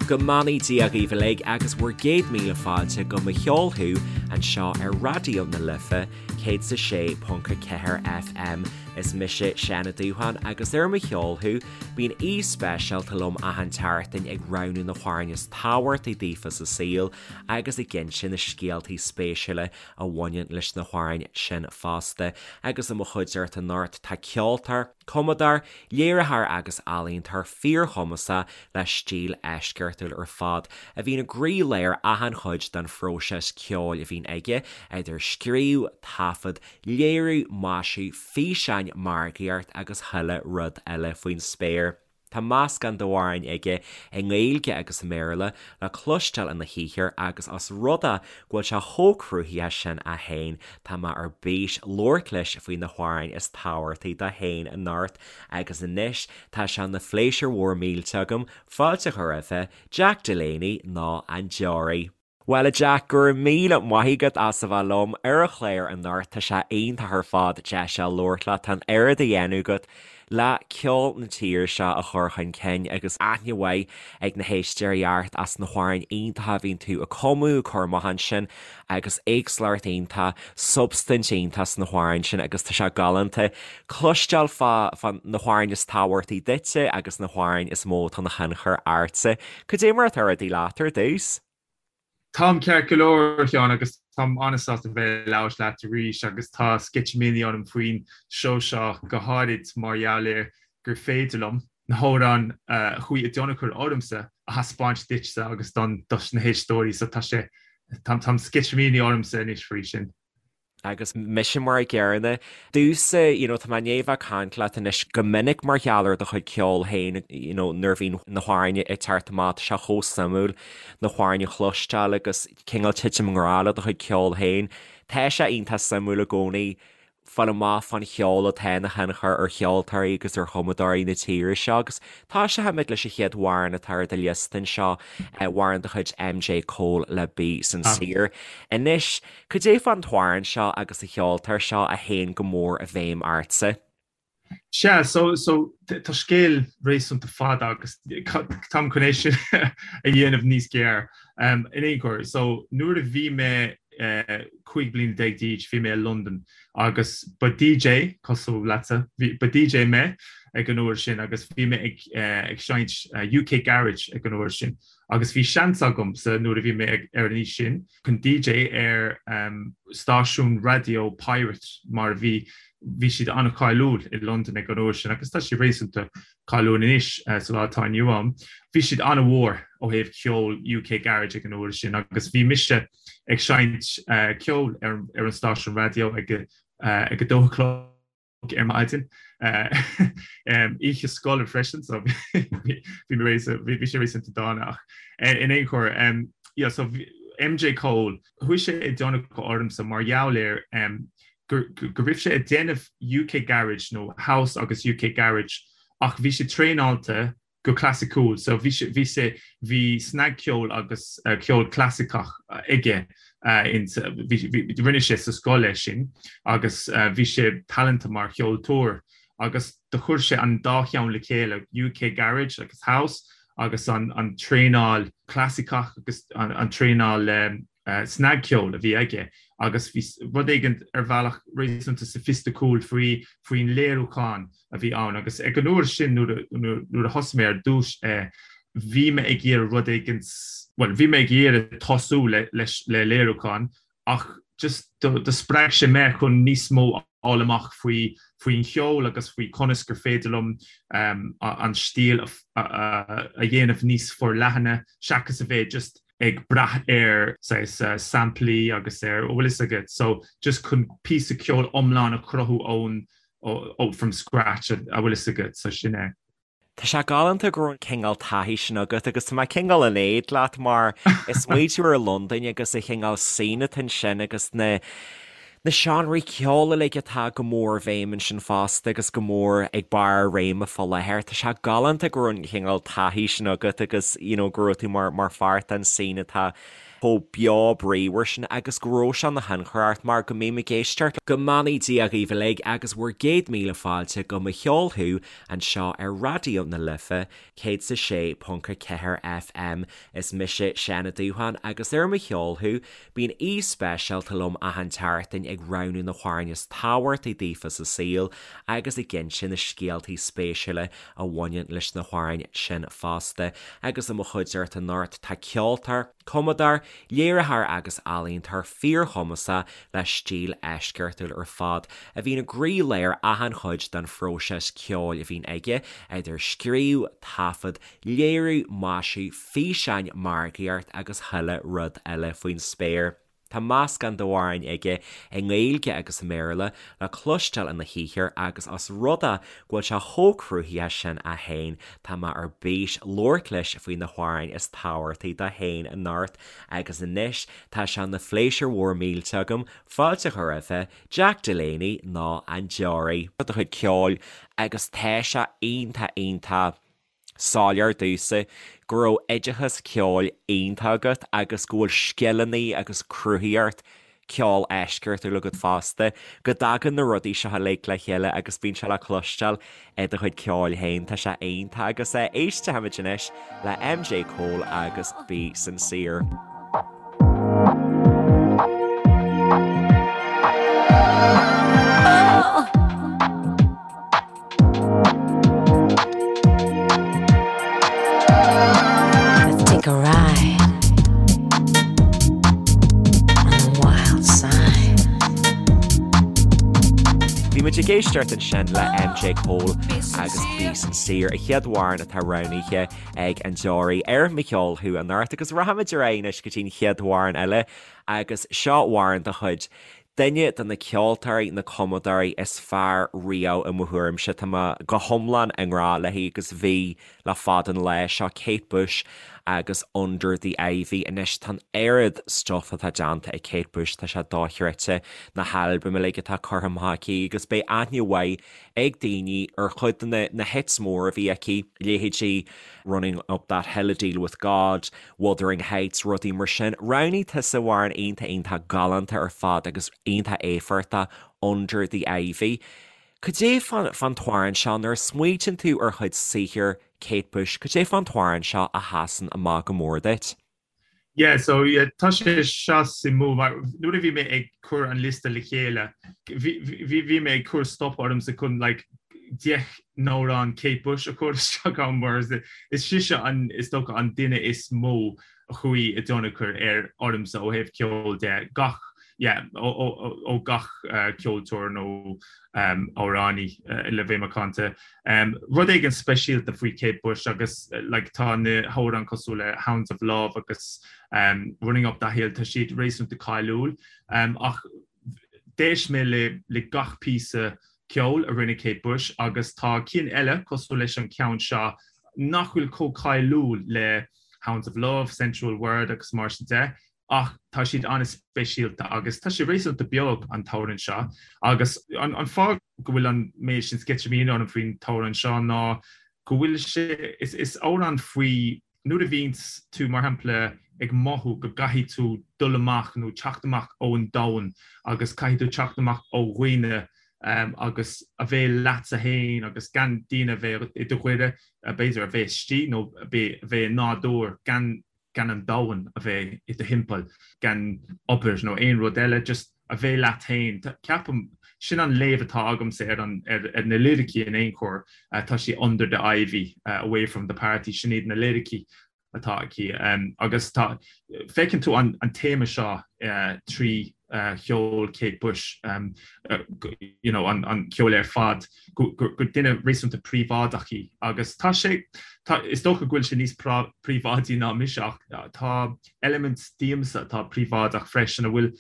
Go mbeannaí Dia dhaoibh uilig agus bhur gcéad míle fáilte go Mo Cheol Thú anseo ar Raidió na Life 106.4 FM. Is mise Seán Ó Dúsháin agus ar Mo Cheol Thú bíonn aoi speisialta liom achan tseachtain ag roghnú na hamhráin is tábhachtaí daofa sa saol agus ag inse na scéaltaí spéisiúla a bhaineann leis na hamhráin sin fosta. Agus i mo chuideachta anocht tá ceoltóir, cumadóir, léiritheoir agus ealaíontóir fíorchumasach le stíl eisceachtúil ar fad, a bhíonn i gcroílár achan chuid den phróiseas ceoil a bhíonn aige, idir scríobh, taifead, léiriú, maisiú, físeáin, margaíocht agus chuile rud eile faoin spéir. Tá meascán d'amhráin aige i nGaeilge agus i mBéarla le cloisteáil ina shaothar agus os rud é go bhfuil sé chomh cruthaitheach sin é féin, tá mé ar bís labhairt leis faoi na hamhráin is tábhachtaí dó féin anocht agus anois tá sé ina phléisiúr mhór millteach agam fáilte a chur roimhe, Jack Delaney nó An Deoraí. Bhuel a Jack, go raibh míle maith agat as a bheith liom ar an chlár anocht, tá sé iontach ar fad deis a labhairt leat, tá an oiread á dhéanamh agat le ceol na tíre seo a chur chun cinn agus aithne mhaith ag na héisteoirí ort as na hamhráin iontacha a bhíonn tú ag cumadh, ag cur amach ansin agus éagsúlacht iontach, substaint iontach sna hamhráin sin agus tá sé galánta cloisteáil fá fá na hamhráin is tábhachtaí duitse agus na hamhráin is mó atá ina thionchar ortsa. Cad é mar atá rudaí leat ar dtús? Táim ceart go leor, a Sheáin, agus táim an-sásta bheith ag labhairt leat arís agus tá sceitimíní orm faoin seó seo, go háirid mar gheall ar gur féidir liom na hamhráin a chuaigh i dtionchar ormsa a thaispeáint duitse agus don dos na héisteoirí, so tá sé, táim sceitimíní ormsa anois faoi sin. Agus mise mar a gcéanna. Domhsa, you know, tá mé i ndiaidh bheith ag caint leat anois go minic mar gheall ar do chuid ceoil féin, you know, nuair a bhíonn na hamhráin ag teacht amach, tá sé chomh suimiúil na hamhráin a chloisteáil agus cineál titim i ngrá le do chuid ceoil féin. Tá sé iontach suimiúil i gcónaí fáil amach fán cheol atá ina thionchar ar cheoltóirí agus ar chumadóirí na tíre seo agus tosóimid leis an chéad amhrán atá ar do liosta anseo, amhrán de chuid MJ Cole le Be Sincere. Anois, Cad é fán t-amhrán seo agus an cheoltóir seo a théann go mór i bhfeidhm ortsa? Sea, so, so, tá scéal réasúnta fada agus táim chun é sin a dhéanamh níos gearr. In aon chor, so, nuair a bhí mé 15 bliana d'aois, bhí mé i Londain agus ba DJ, cosúil leatsa, ba DJ mé ag an uair sin agus bhí mé ag ag seinnt UK Garage ag an uair sin agus bhí seans agamsa nuair a bhí mé ar an aois sin, chun DJ ar stáisiún raidió pirate mar a bhí, bhí siad an-cháiliúil i Londain ag an uair sin agus tá siad réasúnta cáiliúil anois sa lá atá inniu ann. Bhí siad an-mhór ó thaobh ceol UK Garage ag an uair sin agus bhí mise ag seinnt ceoil ar an stáisiún raidió ag a dó a chlog. ar maidin. Oíche scoile freisin so bhí bhí sé réasúnta dána ach in aon chor yeah so MJ Cole chuaigh sé i dtionchar ormsa mar gheall ar go raibh sé ag déanamh UK Garage nó House agus UK Garage ach bhí sé traenáilte go clasaiceúil. So bhí sé, bhí sé, bhí snagcheol agus ceol clasaiceach aige in, bhí, bhí, rinne sé sa scoil é sin agus bhí sé talanta mar cheoltóir agus do chuir sé an dá cheann le chéile, UK Garage agus House agus an, an traenáil clasaiceach agus an, an traenáil snagcheol a bhí aige agus bhí rud éigin ar bhealach réasúnta soifisticiúil faoi, faoin léiriúchán a bhí ann agus ag an uair sin nuair nuair a thosaigh mé ar dtús é bhí mé ag iarraidh rud éigin, bhuel bhí mé ag iarraidh tosú le leis le léiriúchán ach just do do spreag sé mé chun níos mó a fháil amach faoi faoin cheol agus faoi conas gur féidir liom an stíl a a dhéanamh níos forleathana seachas a bheith just ag brath ar saghas samplaí agus ar, bhfuil fhios agat, so just chun píosa ceoil iomlán a chruthú ón, ó, from scratch, a bhfuil fhios agat, so sin é. Tá sé galánta go raibh an cineál taithí sin agat agus tá mé cineál in éad leat mar ag smaoitiú ar Londain agus an chineál scene atá ansin agus na na seánraí ceoil uilig atá go mór i bhfeidhm ansin fosta agus go mór ag barr a réime fá láthair. Tá sé galánta go raibh an cineál taithí sin agat agus you know go raibh tú mar mar pháirt den scene atá. chomh beo bríomhar sin agus go raibh sé ina thionchar ort mar go mbím ag éisteacht Go mbeannaí Dia dhaoibh uilig agus bhur gcéad míle fáilte go Mo Cheol Thú anseo ar Raidió na Life 106.4 FM. Is mise Seán Ó Dúsháin agus ar Mo Cheol Thú bíonn aoi speisialta liom achan tseachtain ag roghnú na hamhráin is tábhachtaí daofa sa saol agus ag inse na scéaltaí spéisiúla a bhaineann leis na hamhráin sin fosta. Agus i mo chuideachta anocht tá ceoltóir, cumadóir, léiritheoir agus ealaíontóir fíorchumasach le stíl eisceachtúil ar fad a bhíonn i gcroílár achan chuid den phróiseas ceoil a bhíonn aige, idir scríobh, taifead, léiriú, maisiú, físeáin, margaíocht agus chuile rud eile faoin spéir. Tá meascán d'amhráin aige i nGaeilge agus i mBéarla le cloisteáil ina shaothar agus os rud é go bhfuil sé chomh cruthaitheach sin é féin, tá mé ar bís labhairt leis faoi na hamhráin is tábhachtaí dó féin anocht agus anois tá sé ina phléisiúr mhór millteach agam fáilte a chur roimhe, Jack Delaney nó An Deoraí. do chuid ceoil agus tá sé iontach iontach soiléir domhsa go raibh oideachas ceoil iontach agat agus go bhfuil scileanna agus cruthaitheacht ceoil eisceachtúil agat fosta, go dtagann na rudaí seo uilig le chéile agus bíonn sé le cloisteáil i do chuid ceoil féin. Tá sé iontach agus éistfimid anois le MJ Cole agus Be Sincere. Let's take a ride on the wild side. Bhí muid ag éisteacht ansin le MJ Cole agus Be Sincere, an chéad amhrán atá roghnaithe ag an Deoraí ar Mo Cheol Thú anocht agus rachaimid ar aghaidh anois go dtí an chéad amhrán eile agus seo amhrán de chuid Duine de na ceoltóirí, na cumadóirí is fearr riamh i mo thuairimse. Tá mé go hiomlán i ngrá léi agus bhí le fada an lá. Seo Kate Bush agus Under the Ivy. Anois tá an oiread stuff atá déanta ag Kate Bush, tá sé dochreidte, na halbaim uilig atá curtha amach aici agus beidh aithne mhaith ag daoine ar chuid de na hits móra a bhí aici, leithéidí Running Up That Hill, A Deal With God, Wuthering Heights, rudaí mar sin. Roghnaigh tusa amhrán iontach iontach galánta ar fad agus iontach éifeachtach, Under the Ivy. Cad é fán t-amhrán seo, nuair a smaoitíonn tú ar chuid saothair Kate Bush, cad é fán t-amhrán seo a sheasann amach go mór duit? Yeah, so yeah, tá sé seo suimiúil mar nuair a bhí mé ag cur an liosta le chéile, bhí, bhí, bhí mé ag cur stop ormsa chun like 10 n-amhrán Kate Bush a chur isteach ann mar is, is sise an, is dócha an duine is mó a chuaigh i dtionchar ar ormsa ó thaobh ceoil de, gach, yeah, ó, ó, ó, ó gach uh, ceoltóir nó um, amhránaí uh, le bheith macánta. Rud éigin speisialta faoi Kate Bush agus like tá na hamhráin cosúil le Hounds of Love agus Running Up That Hill, tá siad réasúnta cáiliúil. Ach d'éist mé le le gach píosa ceoil a rinne Kate Bush agus tá cinn eile cosúil leis an ceann seo nach bhfuil chomh cáiliúil le Hounds of Love, Sensual Word agus mar sin de. ach tá siad an-speisialta agus tá sé réasúnta beag an t-amhrán seo agus an fáth go bhfuil an méid sin sceitimíní orm faoin t-amhrán seo ná go bhfuil sé, is amhrán faoi nuair a bhíonns tú mar shampla ag mothú go gcaithfidh tú dul amach nó teacht amach ón domhan agus caithfidh tú teacht amach ó dhaoine agus a bheith leatsa féin agus gan daoine a bheith i do ghaire, b'fhéidir a bheith istigh nó a bheith i nádúr gan gan an domhan a bheith i do thimpeall, gan obair nó aon rud eile, just a bheith leat féin. Ceapaim, sin an léamh atá agamsa ar an, ar, ar na liricí in aon chor, tá sí under the ivy, away from the party, sin iad na liricí atá aici. Agus tá, feiceann tú an, an téama seo trí cheol Kate Bush, you know, an, an ceol ar fad, gur duine réasúnta príobháideach í agus tá sé, tá, is dócha go bhfuil sé níos príobháidí ná mise ach tá eilimint díomsa atá príobháideach freisin a bhfuil,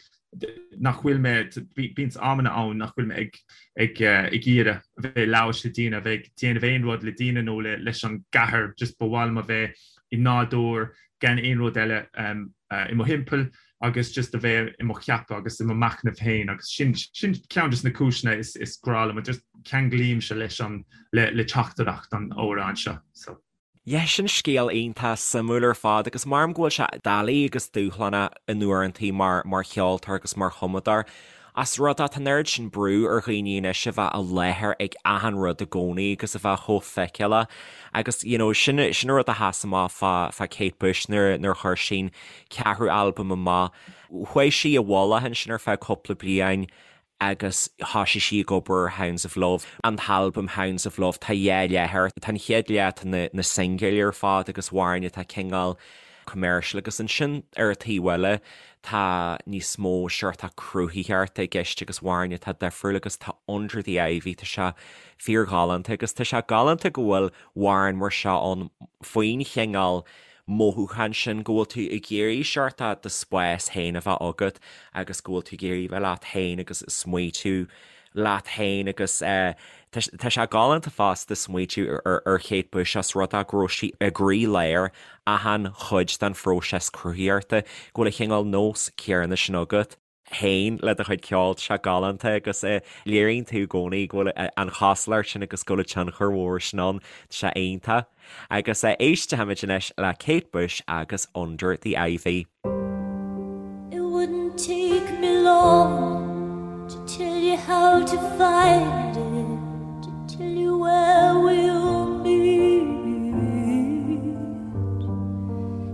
nach bhfuil mé, bíonn amanna ann nach bhfuil mé ag, ag, ag iarraidh a bheith ag labhairt le daoine, a bheith ag déanamh aon rud le daoine nó le, leis an gcathair, just ba mhaith liom a bheith i nádúr gan aon rud eile i mo thimpeall. agus just a bheith i mo cheapadh agus i mo machnamh féin agus sin sin ceann de na cúiseanna is is grá liom just ceanglaímse leis an le le teachtaireacht an amhráin seo so. Yeah, sin scéal iontach suimiúil ar fad agus maram go bhfuil sé doiligh agus dúshlánach in uaireantaí mar mar cheoltóir agus mar chumadóir. Ós rud é tá an oiread sin brú ar dhaoine anois a bheith i láthair ag achan rud i gcónaí agus a bheith chomh feiceálach agus you know sin sin an rud a sheas amach fá fá Kate Bush nuair nuair a chuir sí an ceathrú albam amach. Chuaigh sí i bhfolach ansin ar feadh cúpla bliain agus thoisigh sí ag obair ar Hounds of Love, an t-albam Hounds of Love, tá dhá leath air, tá an chéad leath, tá na na singil ar fad agus amhráin atá cineál commercial agus ansin ar an taobh eile tá níos mó seort cruthaitheachta i gceist agus amhráin atá difriúil agus tá Under the Ivy, tá sé fíorghalánta agus tá sé galánta go bhfuil amhráin mar seo ann faoin chineál mothúchán sin go bhfuil tú ag iarraidh seort do spás féin a bheith agat agus go bhfuil tú ag iarraidh bheith leat féin agus smaoitiú leat féin agus tá sé galánta fosta smaoitiú ar Kate Bush ós rud é go raibh sí i gcroílár achan chuid den phróiseas cruthaitheachta, go bhfuil an chineál nós céanna sin agat. féin le do chuid ceoil, tá sé galánta agus léiríonn tú i gcónaí go bhfuil an chosúlacht sin agus go bhfuil an tionchar mhór sin ann, tá sé iontach. Agus éistfimid anois le Kate Bush agus Under the Ivy. It wouldn't take me long to tell you how to find it, to tell you where we'll meet.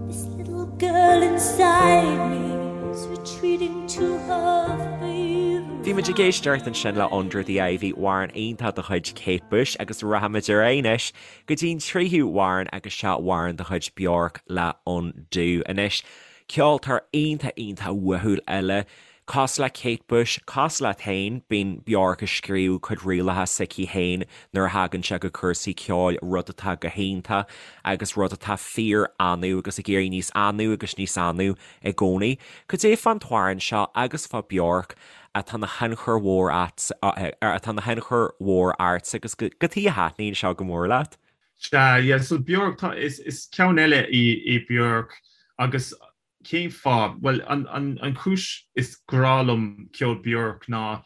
This little girl inside me is retreating to her favorite. Bhí muid ag éisteacht ansin le Under the Ivy, amhrán iontach de chuid Kate Bush agus rachaimid ar aghaidh anois go dtí an tríú hamhrán agus seo amhrán de chuid Bjork le Undo. Anois, ceoltóir iontach iontach uathúil eile Cosúil le Kate Bush, cosúil leat féin, bíonn Bjork ag scríobh cuid rialacha s'aici féin nuair a thagann sé go cúrsaí ceoil, rud atá go hiontach agus rud atá fíor-annamh agus ag éirí níos annamh agus níos annamh i gcónaí. Cad é fán t-amhrán seo agus fá Bjork atá ina thionchar mhór atá ina thionchar mhór ortsa agus cad chuige a thaitníonn seo go mór leat? Sea, yeah, so Bjork, tá, is, is ceann eile í, í Bjork agus Cén fáth? Bhuel, an chúis is grá liom ceol Bjork ná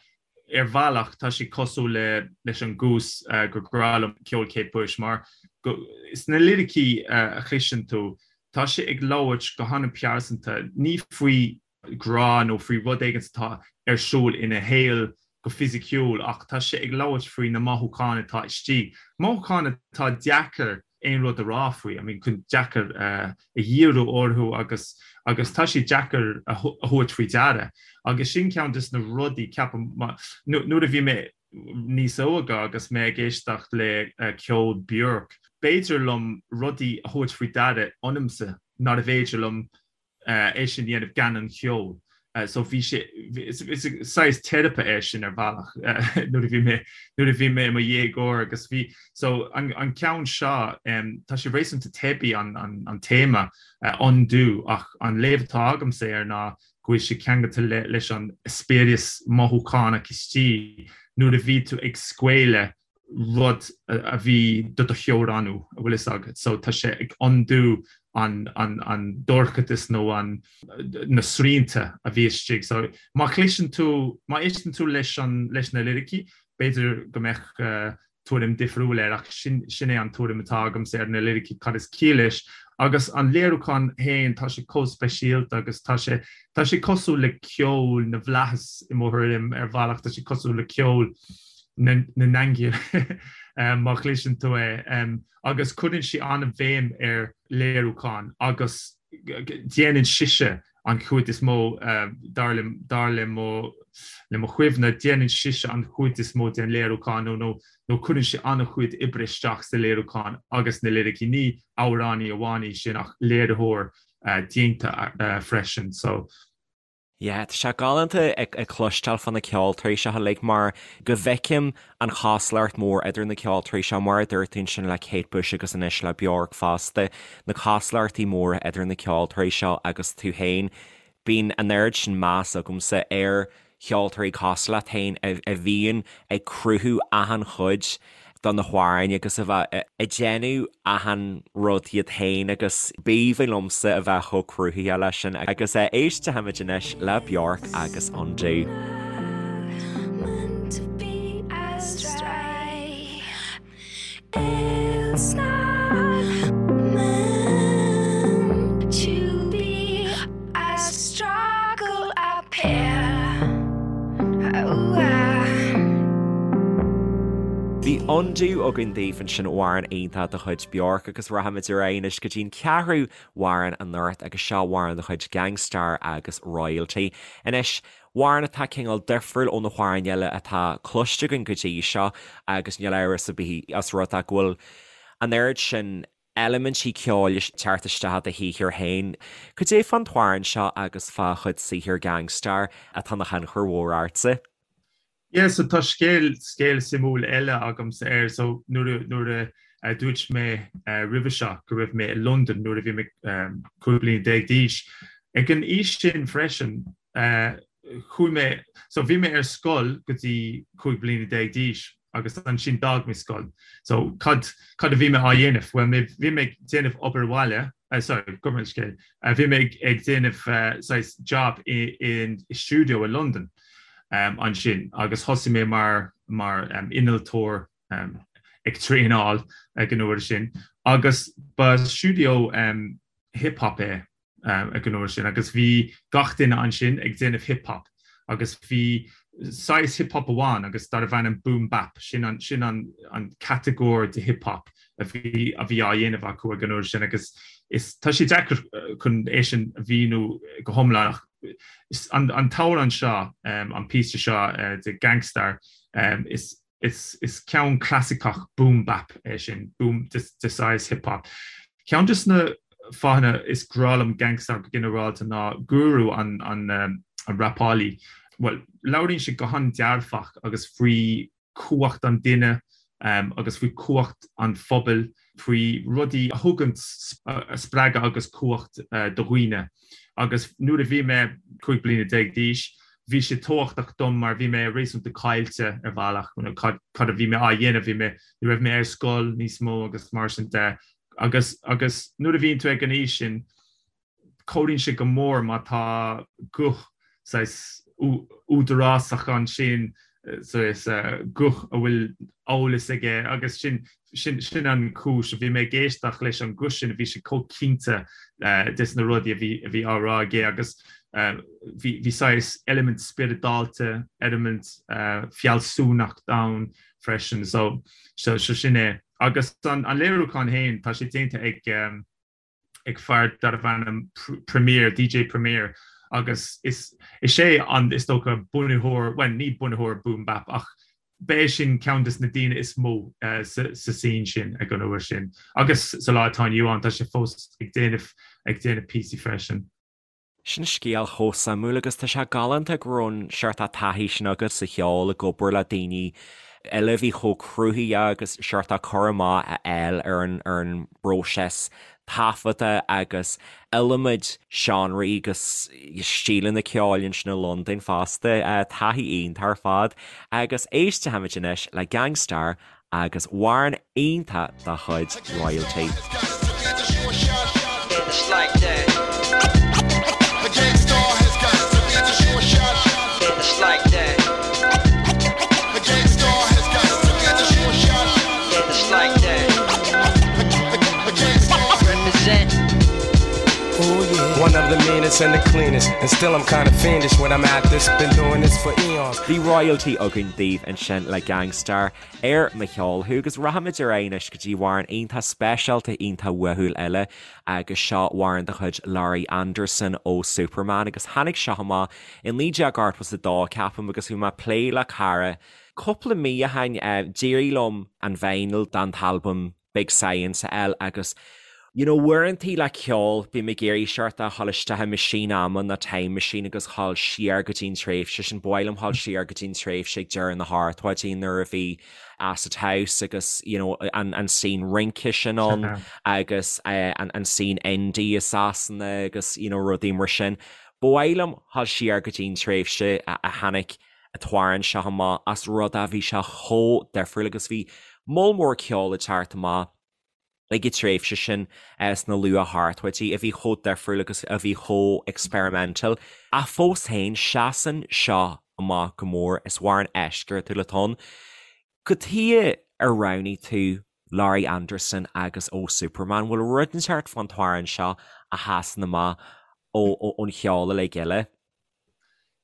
ar bhealach tá sé cosúil le leis an gcúis gur grá liom ceol Kate Bush mar go sna liricí a chloiseann tú tá sé ag labhairt go han-pearsanta, ní faoi grá nó faoi rud éigin atá ar siúl ina shaol go fisiciúil ach tá sé ag labhairt faoi na mothúcháin atá istigh, mothúcháin atá deacair aon rud a rá faoi, I mean chun deacair a dhíriú orthu agus agus tá sé deacair a thabhairt faoi deara agus sin ceann des na rudaí ceapaim nuair a bhí mé níos óige agus mé ag éisteacht le ceol Björk, b'fhéidir liom rudaí a thabhairt faoi deara ionamsa nárbh fhéidir liom é sin a dhéanamh gan an cheol. So bhí sé, is saghas teiripe é sin ar bhealach nuair a bhí mé, nuair a bhí mé i mo dhéagóir agus bhí, so an ceann seo, tá sé réasúnta teibí an an téama undo ach an léamh atá agamsa air ná go bhfuil sé ceangailte leis an eispéireas mothúchánach istigh nuair a bhí tú ag scaoileadh rud a bhí do do theorannú, a bhfuil fhios agat. So tá sé ag undo an an an dorchadas nó an na srianta a bhí istigh. So má chloiseann tú, má éisteann tú leis an leis na liricí, b'fhéidir go mbeadh tuairim difriúil air ach sin sin é an tuairim atá agamsa ar na liricí, cad is ciall leis. Agus an léiriúchán féin, tá sé chomh speisialta agus tá sé tá sé cosúil le ceol na bhflaitheas i mo thuairim ar bhealach, tá sé cosúil le ceol na n-aingeal má chloiseann tú é agus cuireann sí an-bhéim ar léiriúchán agus déanann sise an chuid is mó dar le dar le mo le mo chuimhne déanann sise an chuid is mó den léiriúchán nó nó nó cuireann sí an-chuid oibre isteach sa léiriúchán agus na liricí ní amhránaí amháin í sin ach léiritheoir déanta freisin so Yeah, tá sé galánta ag cloisteáil fá na ceoltóirí seo uilig mar go bhfeicim an chosúlacht mhór idir na ceoltóirí seo, mar a dúirt tú ansin le Kate Bush agus anois le Bjork fosta, na cosúlachtaí móra idir na ceoltóirí seo agus tú féin. Bíonn an oiread sin meas agamsa ar cheoltóirí cosúil leat féin a bhíonn ag cruthú achan chuid de na hamhráin agus a bheith ag déanamh achan rud iad féin agus b'aoibhinn liomsa a bheith chomh cruthaitheach leis sin agus éistfimid anois le Bjork agus Undo. Undo againn daoibh ansin amhrán iontach de chuid Bjork agus rachaimid ar aghaidh anois go dtí'n ceathrú amhrán anocht agus seo amhrán de chuid Gang Starr agus Royalty. Anois, amhrán atá cineál difriúil ó na hamhráin eile atá cloiste againn go dtí seo agus níl amhras ar bith os rud é go bhfuil an oiread sin eilimintí ceoil ag teacht isteach i do shaothar féin. Cad é fán t-amhrán seo agus fá chuid saothair Gang Starr atá ina thionchar mhór ortsa? Yeah so tá scéal scéal suimiúil eile agamsa air so nuair a nuair a dúirt mé roimhe seo go raibh mé i Londain nuair a bhí mé 15 bliana d'aois. Ag an aois sin freisin chuaigh mé so bhí mé ar scoil go dtí 15 bliana d'aois agus ansin d'fhág mé scoil. So cad cad a bhí mé á dhéanamh? Bhuel mé bhí mé ag déanamh obair bhaile sorry gabh mo leithscéal bhí mé ag déanamh saghas job i i stiúideo i Londain. ansin agus thosaigh mé mar mar innealtóir ag traenáil ag an uair sin agus ba stiúideo hip hop é ag an uair sin agus bhí gach duine ansin ag déanamh hip hop agus bhí saghas hip hop amháin agus darbh ainm boom bap sin an sin an an catagóir de hip hop a bhí a bhí á dhéanamh acu ag an uair sin agus is tá sé deacair chun é sin a mhíniú go hiomlán ach An t-amhrán seo, an píosa seo de Gang Starr, is ceann clasaiceach boom bap é sin, boom de saghas hip hop. Ceann de na fáthanna is grá liom Gang Starr go ginearálta ná Guru an rapálaí, bhuel, labhraíonn sé go han-dearfach agus faoi cumhacht an duine agus faoi chumhacht an phobail, faoi rudaí a thugann spreagadh agus cumhacht do dhaoine. Agus nuair a bhí mé 15 bliana d'aois, bhí sé tábhachtach dom mar bhí mé réasúnta caillte ar bhealach, cad a bhí mé á dhéanamh, bhí mé, ní raibh mé ar scoil níos mó agus mar sin de. Agus agus nuair a bhíonn tú ag an aois sin, Cabhraíonn sé go mór má tá guth saghas údarásach ansin, saghas guth a bhfuil eolas aige agus sin sin an chúis a bhí mé ag éisteacht leis an guth sin, bhí sé chomh cinnte des na rudaí a bhí a bhí á rá aige agus bhí bhí saghas eilimint spioradálta, eilimint fealsúnacht ann freisin so so sin é. Agus an léiriúchán féin, tá sé déanta ag. ag fear darbh ainm Premier, DJ Premier, agus is is é an, is dócha, bunaitheoir, bhuel, ní bunaitheoir Boom Bap ach b'é sin ceann des na daoine is mó sa scene sin ag an uair sin. Agus sa lá atá inniu ann tá sé fós ag déanamh ag déanamh píosaí freisin. Sin scéal chomh suimiúil agus tá sé galánta go raibh an seort taithí sin agat sa cheol ag obair le daoine eile a bhí chomh cruthaitheach agus seort cur amach a fháil ar an ar an bpróiseas taifeadta agus iliomad seánraí agus stíleanna ceoil ansin i Londain fosta. Taithí iontach ar fad agus éistfimid anois le Gang Starr agus amhrán iontach dá chuid Royalty. Bhí Royalty againn daoibh ansin le Gang Starr. Ar Mo Cheol Thú agus rachaimid ar aghaidh anois go dtí amhrán iontach speisialta iontach uathúil eile agus seo amhrán de chuid Laurie Anderson Oh Superman agus tháinig seo amach i 1982 ceapaim agus bhí mé ag plé le cara cúpla mí ó shin d'éirigh liom an vinyl den t-albam Big Science a fháil agus you know uaireantaí le ceol bím ag iarraidh seort a dhul isteach i meaisín ama nó time machine agus dhul siar go dtí an tréimhse sin. Ba mhaith liom dhul siar go dtí an tréimhse ag deireadh na hochtóidí nuair a bhí Acid House agus you know an an scene rince sin ann agus eh, an an scene indie i Sasana agus you know rudaí mar sin. Ba mhaith liom dhul siar go dtí an tréimhse a a tháinig an t-amhrán seo amach as rud a bhí sé chomh difriúil agus bhí moll mór ceoil ag teacht amach ag an tréimhse sin sna luath-hochtóidí a bhí chomh difriúil agus a bhí chomh experimental. Ach fós féin, seasann seo amach go mór, is amhrán eisceachtúil atá ann. Cad chuige ar roghnaigh tú Laurie Anderson agus Oh Superman? Bhfuil rud inteacht fán t-amhrán seo a sheasann amach ón cheol uilig eile?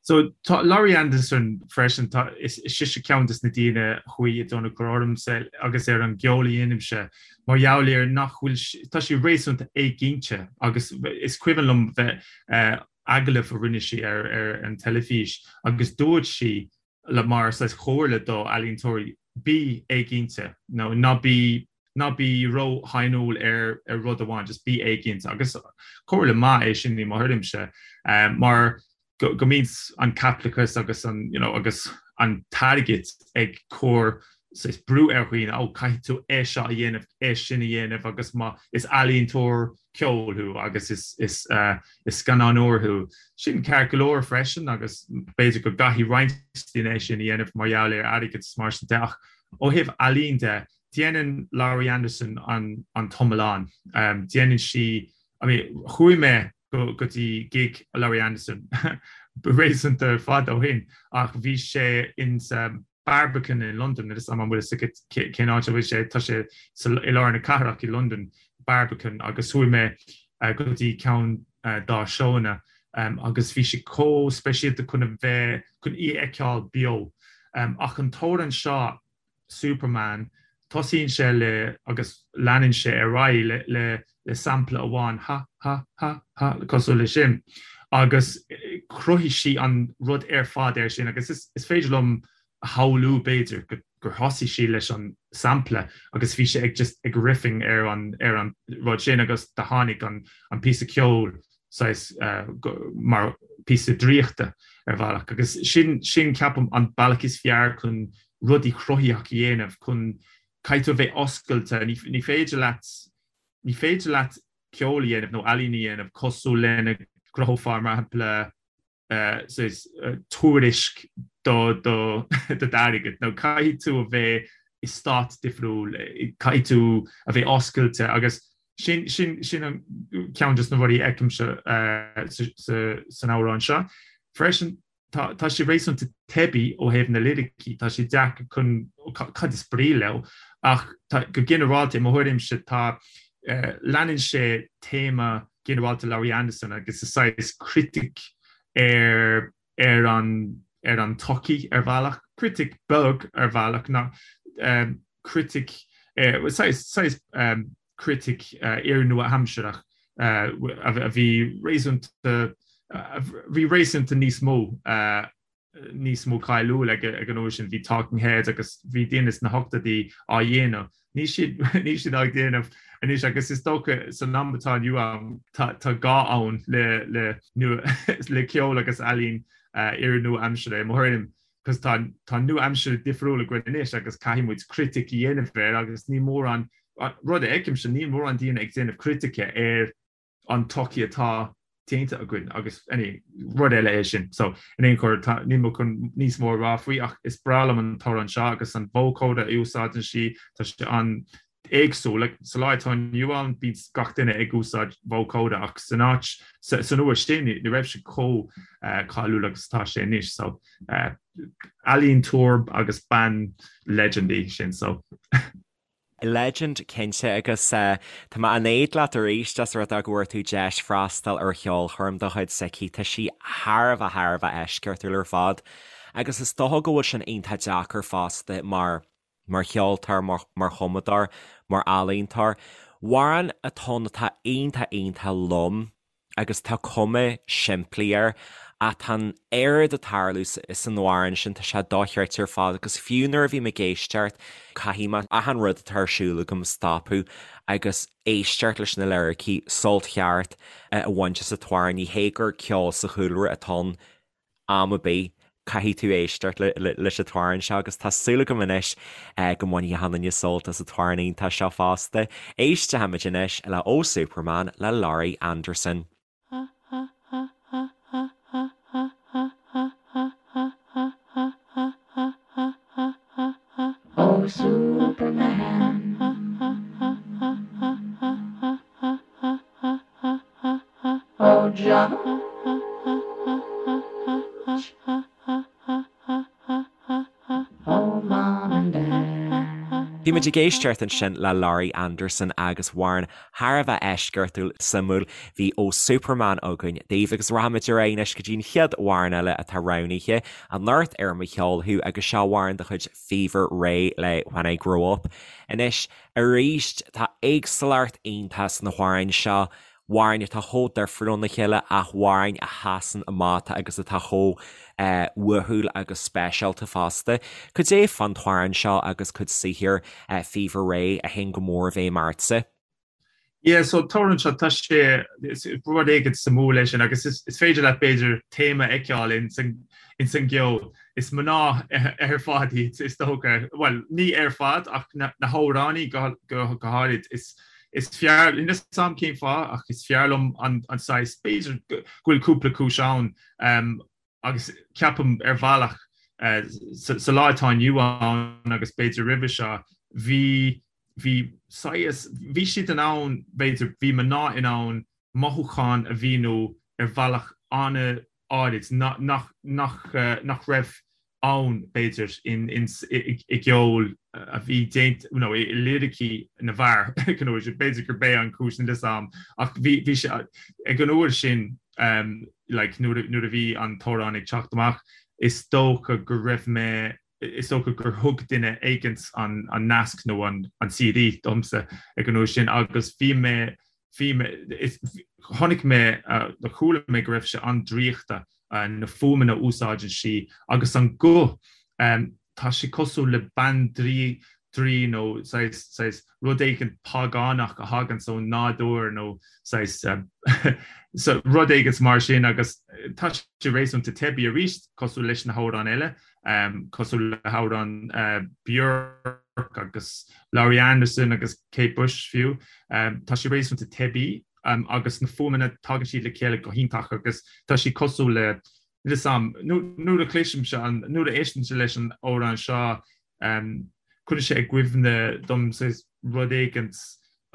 So tá Laurie Anderson freisin, tá, is sise ceann des na daoine a chuaigh i dtionchar ormsa agus ar an gceol a dhéanaimse mar gheall ar nach bhfuil, tá sí réasúnta éiginnte agus is cuimhin liom bheith agallamh a rinne sí ar ar an teilifís agus dúirt sí le mar saghas chomhairle do ealaíontóirí bí éiginnte nó ná bí ná bí ró-shainiúil ar ar rud amháin, just bí éiginnte agus comhairle maith é sin i mo thuairimse mar go go mbíonn an caipitleachas agus an you know agus an t-airgead ag cur saghas brú ar dhaoine, ó caithfidh tú é seo a dhéanamh, é sin a dhéanamh agus má is ealaíontóir ceoil thú agus is is is scannánóir thú, sin ceart go leor freisin agus b'fhéidir go gcaithfidh roinnt daoine é sin a dhéanamh mar gheall ar airgead is mar sin de ach ó thaobh ealaín de, déanann Laurie Anderson an an t-iomlán. Déanann sí, I mean chuaigh mé go go dtí gig Laurie Anderson réasúnta fada ó shin ach bhí sé in sa Barbican in Londain, níl a fhios agam an bhfuil fhios agat cén áit a bhfuil sé, tá sé i lár na cathrach i Londain, Barbican, agus chuaigh mé go dtí ceann dá seónna agus bhí sé chomh speisialta chun a bheith, chun í a fheiceáil beo. Ach an t-amhrán seo, Superman, tosaíonn sé le agus leanann sé ar aghaidh le le le sampla amháin, ha, ha, ha, ha, cosúil le sin. Agus chruthaigh sí an rud ar fad air sin agus is is féidir liom a shamhlú b'fhéidir go gur thosaigh sí leis an sampla agus bhí sé ag just ag riffing ar an ar an rud sin agus do tháinig an an píosa ceoil saghas mar píosa draíochta ar bhealach agus sin sin ceapaim an bealach is fearr chun rudaí cruthaitheach a dhéanamh chun caithfidh tú a bheith oscailte ní ní féidir leat ní féidir leat ceol a dhéanamh nó ealaín a dhéanamh cosúil lena gcruthófá mar shampla saghas tuairisc do do do d'airgead nó caithfidh tú a bheith i stát difriúil caithfidh tú a bheith oscailte agus sin sin sin an ceann de na rudaí a fheicimse san amhrán seo. Freisin tá tá sé réasúnta teibí ó thaobh na liricí, tá sé deacair chun cad is brí leo ach tá go ginearálta i mo thuairimse tá leanann sé téama ginearálta Laurie Anderson agus is saghas critic ar ar an ar an tsochaí ar bhealach, critic beag ar bhealach ná critic saghas saghas critic iar-nua-aimsearach a bhí réasúnta a bhí réasúnta níos mó níos mó cáiliúil ag an uair sin, bhí Talking Heads agus bhí daoine sna hochtóidí á dhéanamh. Níl siad níl siad á dhéanamh anois agus is dócha san am atá inniu ann tá tá gá ann le le nua le ceol agus ealaín iar-nua-aimseartha i mo thuairim cos tá tá nua-aimsir difriúil againn anois agus caithfidh muid critic a dhéanamh air agus ní mórán rud a fheicimse níl mórán daoine ag déanamh critice ar an tsochaí atá déanta againn agus any rud eile é sin. So in aon chor tá níl mé chun níos mó a rá faoi ach is breá liom an t-amhrán seo agus an vocoder a úsáideann sí tá sé an-éagsúil. Like, sa lá atá inniu ann bíonn gach duine ag úsáid vocoder ach san áit san uair sin ní raibh sé chomh cáiliúil agus atá sé anois. So ealaíontóir agus bean legend í sin so. Legend cinnte agus tá mé in éad leat arís as rud é go bhfuair tú deis freastal ar cheolchoirm de chuid s'aici. Tá sí thar a bheith thar a bheith eisceachtúil ar fad agus is dócha go bhfuil sin iontach deacair fosta mar mar cheoltóir, mar mar chumadóir, mar ealaíontóir. Amhrán atá ann atá iontach iontach lom agus tá cuma simplí air ach tá an oiread ag tarlú san amhrán sin, tá sé dochreidte ar fad agus fiú nuair a bhím ag éisteacht, caithfidh mé achan rud atá ar siúl agam a stopadh agus éisteacht leis na liricí, sult cheart a bhaint as an t-amhrán, ní hé gur ceol sa chúlra atá ann am ar bith, caithfidh tú éisteacht leis an t-amhrán seo agus tá súil agam anois go mbainfidh achan duine sult as an t-amhrán iontach seo fosta. Éistfimid anois le Oh Superman le Laurie Anderson. Oh Superman. Oh Judge. Oh Mom and Dad. Bhí Bhí muid ag éisteacht ansin le Laurie Anderson agus amhrán thar a bheith eisceachtúil suimiúil. Bhí Oh Superman againn daoibh agus rachaimid ar aghaidh anois go dtí an chéad amhrán eile atá roghnaithe anocht ar Mo Cheol Thú agus seo amhrán de chuid Fever Ray le When I Grow Up. Anois arís tá éagsúlacht iontach sna hamhráin seo. amhráin atá chomh difriúil óna chéile ach amhráin a sheasann amach agus atá chomh uathúil agus speisialta fosta. Cad é fán t-amhrán seo agus cuid saothair Fever Ray a théann go mór i bhfeidhm ortsa? Yeah, so t-amhrán seo, tá sé, rud éigin suimiúil leis sin agus is féidir leat b'fhéidir téama a fheiceáil ins an gceol. Is mná ar fad iad is dócha, bhuel, ní ar fad ach na hamhránaí go háirid, is Is fearr, níl 'fhios a'm cén fáth, ach is fearr liom an saghas, b'fhéidir go bhfuil cúpla cúis ann, agus ceapaim ar bhealach sa lá atá inniu ann agus b'fhéidir roimhe seo, bhí, bhí saghas, bhí siad in ann, b'fhéidir, bhí mná in ann mothúcháin a mhíniú ar bhealach an-áirid nach, nach, nach raibh ann, b'fhéidir, i gceol a bhí déanta, nó i liricí na bhfear, b'fhéidir gurb é an chúis, níl 'fhios a'm, ach bhí sé, ag an uair sin, like, nuair a bhí an t-amhrán ag teacht amach, is dócha go raibh mé, is dócha gur thug duine éigint an nasc nó an CD domsa ag an uair sin agus bhí mé, bhí mé, chonaic mé, nó chuala mé go raibh sé an-draíochta, na fuaimeanna a úsáideann sí agus an guth, tá sé cosúil le bandraoi draoi nó saghas, saghas rud éigin págánach a thaganns ón nádúr nó saghas, so rud éigin mar sin agus tá sé réasúnta teibí arís cosúil leis na hamhráin eile, cosúil le hamhráin Björk agus Laurie Anderson agus Kate Bush fiú. Tá sé réasúnta teibí agus na fuaimeanna tagann siad le chéile go hiontach agus tá sé cosúil le níl 'fhios a'm, nuair a chloisimse an, nuair a éistimse leis an amhrán seo, cuireann sé i gcuimhne dom saghas rud éigint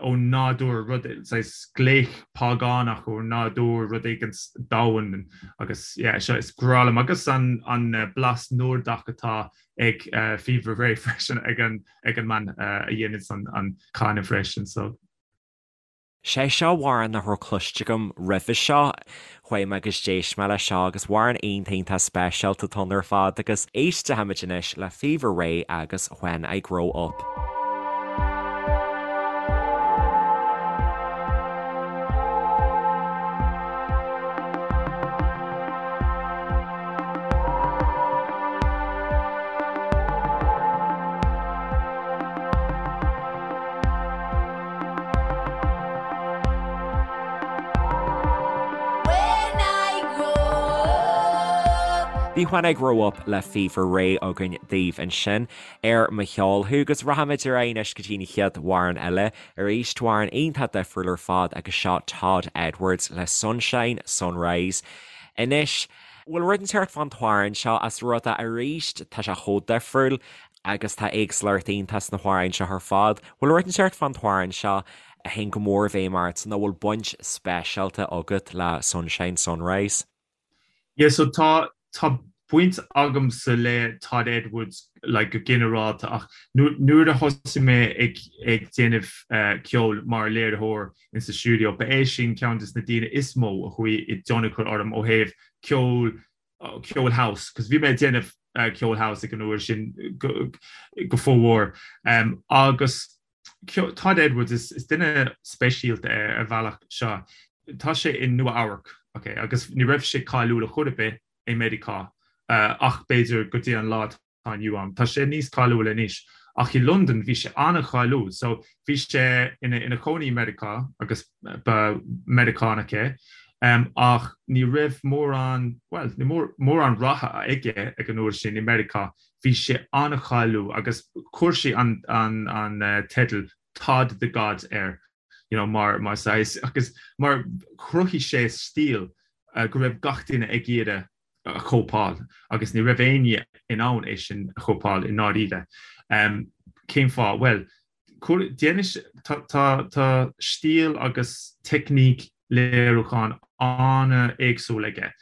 ón nádúr, rud, saghas glaoch págánach ón nádúr, rud éigint domhain agus yeah, seo is grá liom agus an, an blas Nordach atá ag Fever Ray freisin ag an, ag an mbean a dhéananns an, an canadh freisin so. Sé seo amhrán nach raibh cloiste agam roimhe seo. Chuaigh mé agus d'éist mé leis seo agus amhrán iontach iontach speisialta atá ann ar fad agus éistfimid anois le Fever Ray agus When I Grow Up. Bhí When I Grow Up le Fever Ray againn daoibh ansin ar Mo Cheol Thú agus rachaimid ar aghaidh anois go dtí an chéad amhrán eile, arís amhrán iontach difriúil ar fad agus seo Todd Edwards le Sunshine Sunrise. Anois, bhfuil rud inteacht fán t-amhrán seo as rud a arís tá sé chomh difriúil, Agus tá éagsúlacht iontach sna hamhráin seo ar fad. Bhfuil rud inteacht fán t-amhrán seo a théann go mór i bhfeidhm ort nó bhfuil baint speisialta agat le Sunshine Sunrise? Yeah so tá tá baint agamsa le Todd Edwards like go ginearálta ach nuair a thosaigh mé ag ag déanamh ceoil mar léiritheoir in sa stiúideo ba é sin ceann des na daoine is mó a chuaigh i dtionchar orm ó thaobh ceol ceol house, cos bhí mé ag déanamh ceol house ag an uair sin go fómhór. Agus Todd Edwards is duine speisialta é ar bhealach seo. Tá sé i Nua Eabhrac, ok, agus ní raibh sé cáiliúil a chor ar bith i Meiriceá ach b'fhéidir go dtí an lá atá inniu ann. Tá sé níos cáiliúil anois ach i Londain bhí sé an-cháiliúil. So bhí sé ina ina chónaí i Meiriceá agus ba Meiriceánach é ach ní raibh mórán, bhuel, ní mórán ratha aige ag an uair sin i Meiriceá. Bhí sé an-cháiliúil agus chuir sé an an an teideal Todd the God air you know mar mar saghas agus mar chruthaigh sé stíl go raibh gach duine ag iarraidh a chóipeáil agus ní raibh éinne in ann é sin a chóipeáil i ndáiríre. Cén fáth? Bhuel, tá stíl agus teicníc léiriúcháin an-éagsúil aige.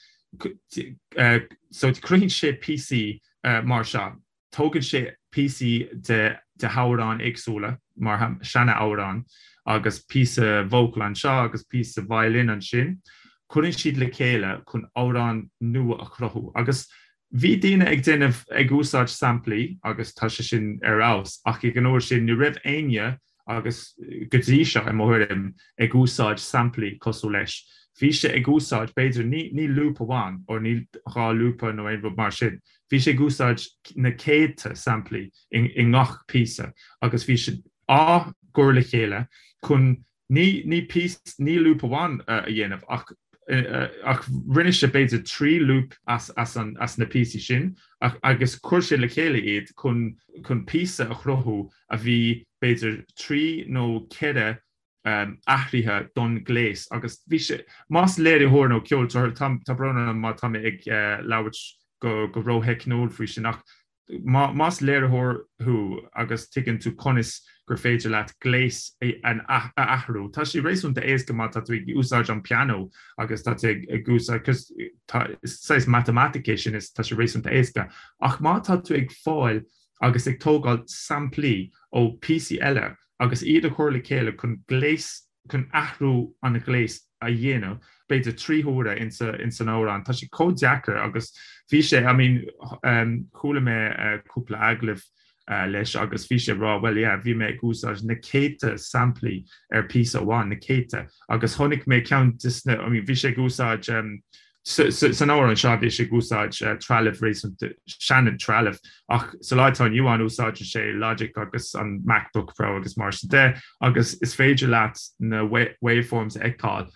So cruthaíonn sé píosaí mar seo. Tógann sé píosaí de de hamhráin éagsúla, mar seana-amhráin, agus píosa vocal anseo agus píosa violin ansin, cuireann siad le chéile chun amhrán nua a chruthú. Agus bhí daoine ag déanamh, ag úsáid samplaí agus tá sé sin ar fheabhas, ach ag an uair sin ní raibh éinne agus go dtí seo, i mo thuairim, ag úsáid samplaí cosúil leis. Bhí sé ag úsáid, b'fhéidir, ní ní loop amháin, or ní dhá lúpa nó aon rud mar sin, bhí sé ag úsáid na céadta samplaí i i ngach píosa agus bhí siad á gcur le chéile chun ní ní píos ní loop amháin a dhéanamh ach ach rinne sé b'fhéidir 3 loop as as an as na píosaí sin ach agus chuir sé le chéile iad chun chun píosa a chruthú a bhí b'fhéidir 3 nó 4 athraithe don ghléas agus bhí sé, más léiritheoir nó ceoltóir, tá brón orm má tá mé ag labhairt go go rótheicniúil faoi sin ach más léiritheoir thú agus tuigeann tú conas gur féidir leat gléas a athrú, tá sé réasúnta éasca má tá tú ag úsáid an pianó agus tá tú ag úsáid, cos tá saghas matamaitic é sin is tá sé réasúnta éasca ach má tá tú ag fáil agus ag tógáil samplaí ó phíosaí eile agus iad a chur le chéile chun gléas, chun athrú an ghléas a dhéanamh, b'fhéidir 3 huaire ins an amhrán. Tá sé chomh deacair agus bhí sé, I mean, chuala mé cúpla agallamh leis agus bhí sé ag rá, well yeah, bhí mé ag úsáid na céadta samplaí ar phíosa amháin, na céadta, agus chonaic mé ceann de na, I mean, bhí sé ag úsáid San amhrán seo bhí sé ag úsáid trealamh réasúnta sean-trealamh ach sa lá atá inniu ann úsáideann sé Logic agus an MacBook Pro agus mar sin de agus is féidir leat na waveforms a fheiceáil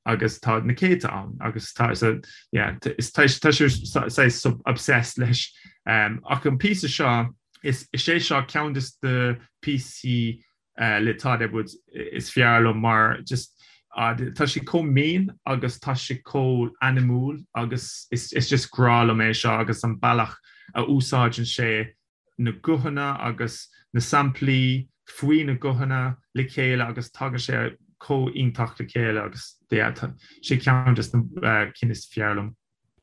agus tá na céadta ann agus tá so yeah is tá sé saghas obsessed leis. Ach an píosa seo is é seo ceann de na píosaí le Todd Edwards is fearr liom mar just tá sé chomh mín agus tá sé chomh anamúil agus is just grá liom é seo agus an bealach a úsáideann sé na guthanna agus na samplaí faoi na guthanna le chéile agus tagann sé chomh iontach le chéile agus yeah tá sé ceann de na cinn is fearr liom.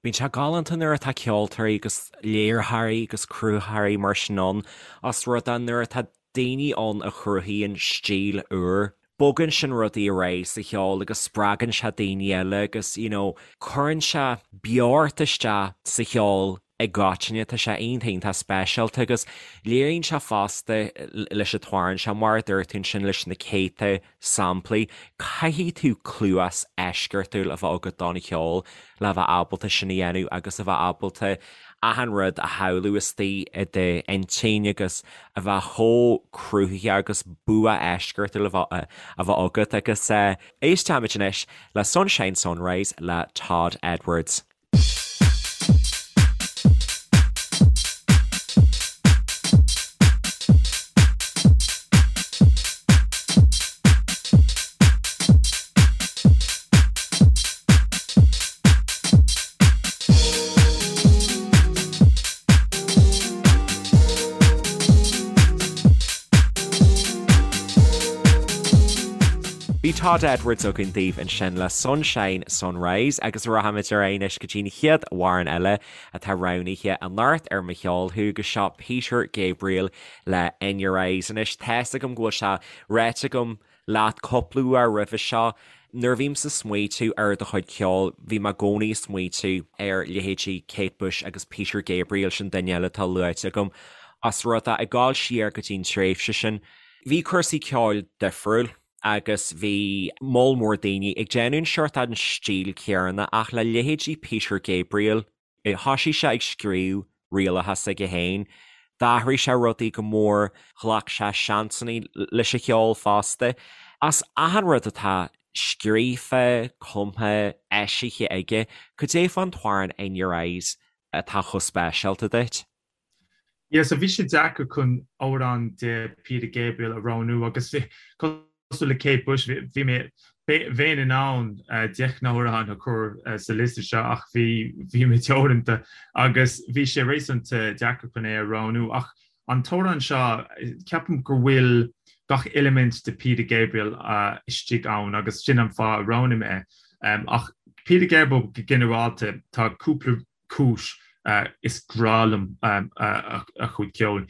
Bíonn sé galánta nuair atá ceoltóirí agus léiritheoirí agus cruthaitheoirí mar sin ann, os rud é nuair atá daoine ann a chruthaíonn stíl úr, bogann sin rudaí ar aghaidh sa cheol agus spreagann sé daoine eile agus you know cuireann sé beocht isteach sa cheol i gcoitinne, tá sé iontach iontach speisialta agus léiríonn sé fosta leis an t-amhrán seo, mar a dúirt tú ansin leis na céadta samplaí. Caithfidh tú cluas eisceachtúil a bheith agat don cheol le bheith ábalta sin a dhéanamh agus a bheith ábalta achan rud a shamhlú istigh i d'intinn agus a bheith chomh cruthaitheach agus bua eisceachtúil a bheith a bheith agat agus éistfimid anois le Sunshine Sunrise le Todd Edwards. Bhí Todd Edwards againn daoibh ansin le Sunshine Sunrise agus rachaimid ar aghaidh anois go dtí an chéad amhrán eile atá roghnaithe anocht ar Mo Cheol Thú agus seo Peter Gabriel le In Your Eyes. Anois tá's agam go bhfuil sé ráite agam leat cúpla uair roimhe seo, nuair a bhímse ag smaoitiú ar do chuid ceoil, bhí mé i gcónaí ag smaoitiú ar leithéidí Kate Bush agus Peter Gabriel, sin duine eile atá luaite agam, os rud é, ag gabháil siar go dtí an tréimhse sin, bhí cúrsaí ceoil difriúil agus bhí moll mór daoine ag déanamh an seort an stíl chéanna ach le leithéidí Peter Gabriel, Thoisigh sé ag scríobh rialacha s'aige féin, d'athraigh sé rudaí go mór, ghlac sé seansanna leis an cheol fosta. As achan rud atá scríofa, cumtha, eisithe aige, cad é fán t-amhrán In Your Eyes atá chomh speisialta duit? Yeah, so bhí sé deacair chun amhrán de Peter Gabriel a roghnú agus bhí, cosúil le Kate Bush, bhí mé, bheinn in ann 10 n-amhrán a chur sa liosta seo ach bhí, bhí mé teoranta agus bhí sé réasúnta deacair chun é a roghnú. Ach an t-amhrán seo, ceapaim go bhfuil gach eilimint de Peter Gabriel istigh ann agus sin an fáth a roghnaigh mé é. Ach Peter Gabriel go ginearálta, tá cúpla cúis. Is grá liom a chuid ceoil.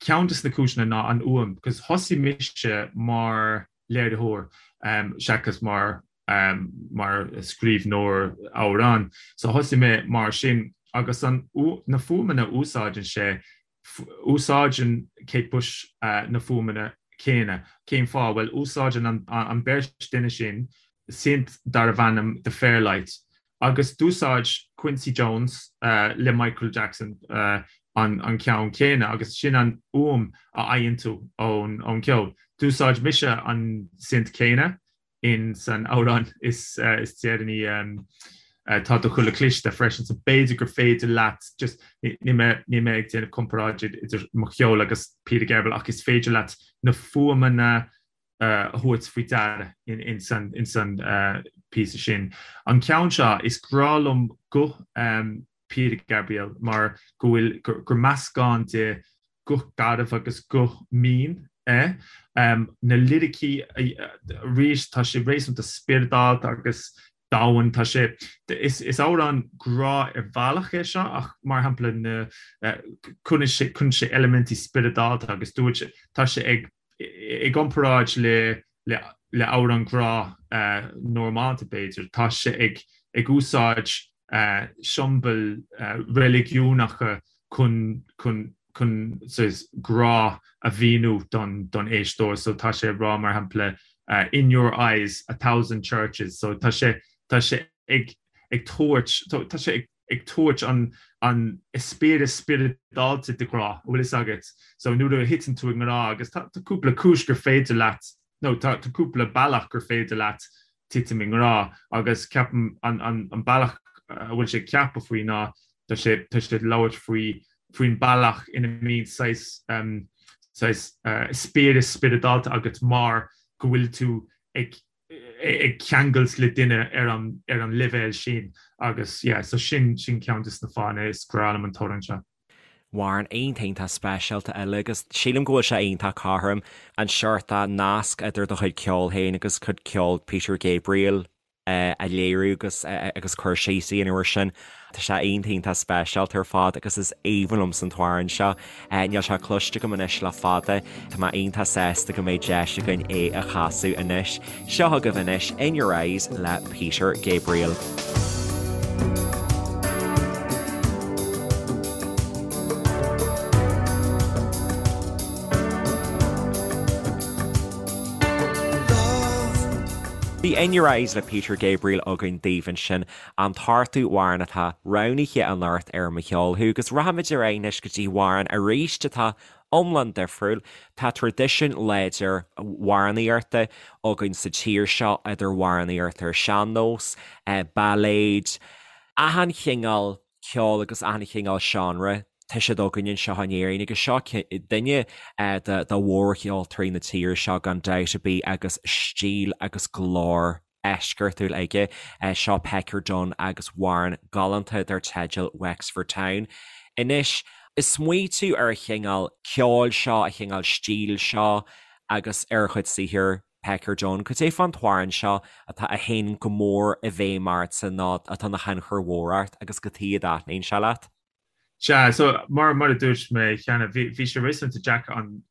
Ceann de na cúiseanna ná an fhuaim, cos thosaigh mise mar léiritheoir seachas mar mar scríbhneoir amhrán. So thosaigh mé mar sin agus an na fuaimeanna a úsáideann sé, úsáideann Kate Bush na fuaimeanna céanna. Cén fáth? Bhuel, úsáideann an beirt duine sin synth darbh ainm The Fairlight agus d'úsáid Quincy Jones le Michael Jackson an ceann céanna agus sin an fhuaim a fhaigheann tú ón gceol. D'úsáid mise an synth céanna in san amhrán is deireanaí Tá do Chuileadh Cliste freisin so b'fhéidir gur féidir leat just níl mé níl mé ag déanamh comparáid idir mo cheol agus Peter Gabriel ach is féidir leat na fuaimeanna a thabhairt faoi deara in san in san píosa sin. An ceann seo is grá liom guth Peter Gabriel mar go bhfuil gur meascán de guth garbh agus guth mín é. Na liricí arís tá sé réasúnta spioradálta agus domhain. Tá sé is amhrán grá ar bhealach é seo ach mar shampla na cuireann sé cuireann sé eilimintí spioradálta agus dúirt sé tá sé ag i gcomparáid le le amhrán grá normálta b'fhéidir, tá sé ag ag úsáid siombail reiligiúnacha chun chun chun saghas grá a mhíniú don don éisteoir. So tá sé ag rá mar shampla in your eyes a thousand churches. So tá sé tá sé ag ag tabhairt tá sé ag ag tabhairt an an eispéireas spioradálta de ghrá, an bhfuil fhios agat. So nuair a thiteann tú i ngrá agus tá tá cúpla cúis gur féidir leat nó tá tá cúpla bealach gur féidir leat titim i ngrá agus ceapaim an an an bealach a bhfuil sé ag ceapadh faoi ná tá sé tá sé ag labhairt faoi faoin bealach ina mbíonn saghas um saghas uh, eispéireas spioradálta agat mar go bhfuil tú ag ag ceangailt le duine ar an ar an leibhéal sin agus yeah so sin sin ceann de na fáthanna is grá liom an t-amhrán seo. Amhrán iontach iontach speisialta eile agus sílim go bhfuil sé iontach cothrom an seort nasc idir do chuid ceoil féin agus cuid ceoil Peter Gabriel a léiriú agus agus cur síos a dhéanamh air sin. Tá sé iontach iontach speisialta ar fad agus is aoibhinn liomsa an t-amhrán seo. Níl sé cloiste agam anois le fada. Tá mé iontach sásta go mbeidh deis againn é a chasadh anois. Seo chugaibh anois In Your Eyes le Peter Gabriel. Bhí In Your Eyes le Peter Gabriel againn daoibh ansin. An t-ochtú amhrán atá roghnaithe anocht ar Mo Cheol Thú agus rachaimid ar aghaidh anois go dtí amhrán arís atá iomlán difriúil. Tá traidisiún láidir amhránaíochta againn sa tír seo, idir amhránaíocht ar sean-nós, bailéid, achan chineál ceoil agus achan chineál seánra, tá siad againn anseo in Éirinn agus seo duine de mhórcheoltóirí na tíre seo gan dabht ar bith agus stíl agus glór eisceachtúil aige. Seo Pecker Dunne agus amhrán galánta dar teideal Wexford Town. Anois, ag smaoitiú ar an chineál ceoil seo, an chineál stíl seo agus ar a chuid saothair Pecker Dunne, cad é fán t-amhrán seo atá a théann go mór i bhfeidhm ortsa nó atá ina thionchar mhór ort agus cad chuige a dtaitníonn sé leat? Sea, so mar mar a dúirt mé cheana, bhí bhí sé réasúnta deacair an